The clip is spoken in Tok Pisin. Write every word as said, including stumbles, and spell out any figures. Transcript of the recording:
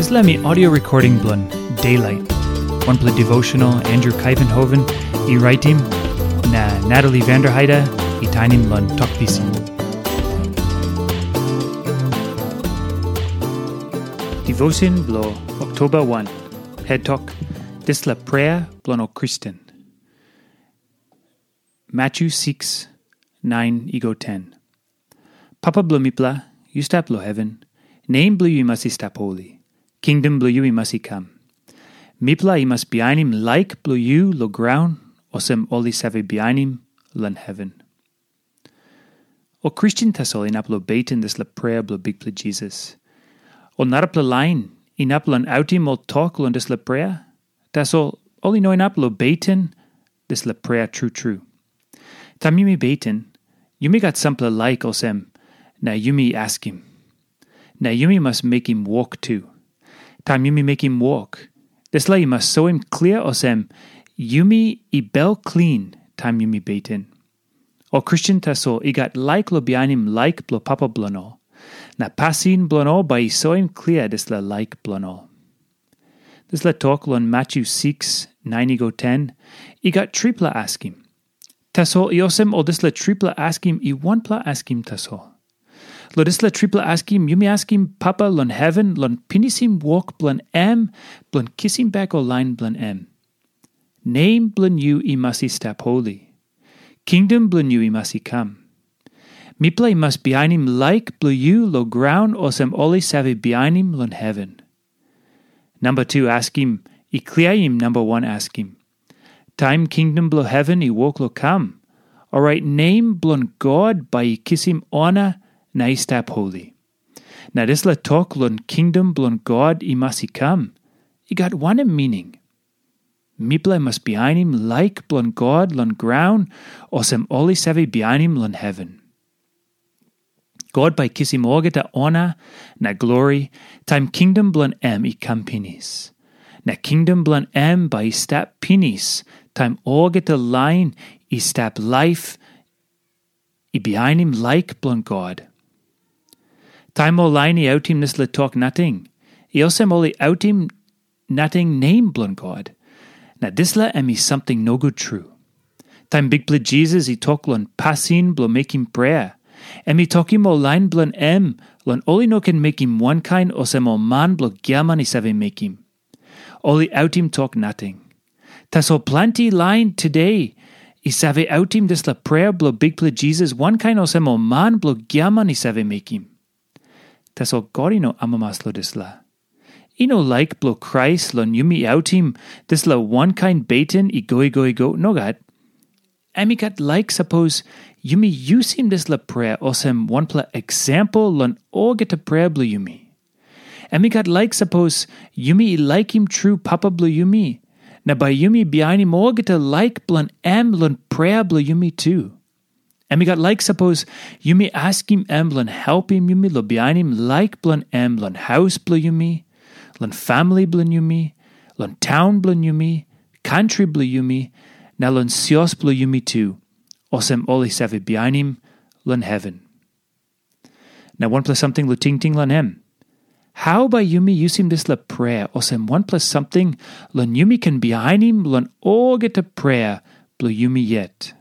Dispela mi audio recording bilong Daylight. Wanpela devotional Andrew Kaivenhoven i raitim, na Natalie Vanderheide i tainim long Tok Pisin. Devotion bilong Oktoba wan. Het tok, dispela prea bilong ol Kristen. Matthew six, nine i go ten. Papa bilong mipela, yu stap long heven, nem bilong yu i mas i stap holi. Kingdom bilong yu i mas i kam. Mipela i mas bihainim laik bilong yu long graun, olsem ol i save bihainim long heven. Ol Kristen tasol inap long beten dispela prea bilong Bikpela Jisas. Ol narapela lain inap long autim ol tok long dispela prea, tasol ol i no inap long beten dispela prea tru tru. Taim yumi beten, yumi gat sampela laik olsem, na yumi askim. Na yumi mas mekim wok tu. Taim yumi mekim wok, dispela i mas soim klia olsem, yumi i bel klin taim yumi beten. Ol Kristen tasol i gat laik long bihainim laik bilong papa bilong ol, na pasin bilong ol bai i soim klia dispela laik bilong ol. Dispela tok long Matthew six, nine i go ten, i gat tripela askim. Tasol i olsem ol dispela tripela askim i wanpela askim tasol. Long dispela tripela askim, yumi askim Papa long heven long pinisim wok bilong em bilong kisim bek ol lain bilong em. Nem bilong yu i mas i stap holi. Kingdom bilong yu i mas i kam. Mipela i mas bihainim laik bilong yu long graun olsem ol i save bihainim long heven. Namba tu askim i kliaim namba wan askim. Taim kingdom bilong heven i wok long kam, orait nem bilong God bai i kisim ona na i stap holi. Na dispela tok long kingdom bilong God i mas i kam, i gat wanem mining? Mipela i mas bihainim laik bilong God long graun, olsem ol i save bihainim long heven. God bai kisim olgeta ona na glori taim kingdom bilong em i kam pinis. Na kingdom bilong em bai i stap pinis taim olgeta lain i stap laip i bihainim laik bilong God. Taim ol lain i autim dispela tok nating, i olsem ol i autim nating nem bilong God. Na dispela em i samting nogut tru. Taim Bikpela Jisas i tok long pasin bilong mekim prea, em i tokim ol lain bilong em long ol i no ken mekim wankain olsem ol man bilong giaman i save mekim. Ol i autim tok nating. Tasol planti lain today i save autim dispela prea bilong Bikpela Jisas wankain olsem ol man bilong giaman i save mekim. Tasol God i no amamas long dispela. I no laik bilong Krais long yumi autim dispela wankain beten i go i go i go, nogat. Em i gat laik sapos yumi yusim dispela prea olsem wanpela eksempel long olgeta prea bilong yumi. Em i gat laik sapos yumi i laikim tru Papa bilong yumi, na bai yumi bihainim olgeta laik bilong em long prea bilong yumi tu. Em i gat laik sapos yumi askim em long helpim yumi long bihainim laik bilong em long haus bilong yumi, long famili bilong yumi, long taun bilong yumi, kantri bilong yumi, na long sios bilong yumi tu, olsem ol i save bihainim long heven. Na wanpela samting long tingting long em. Hau bai yumi yusim dispela prea olsem wanpela samting long yumi ken bihainim long olgeta prea bilong yumi yet?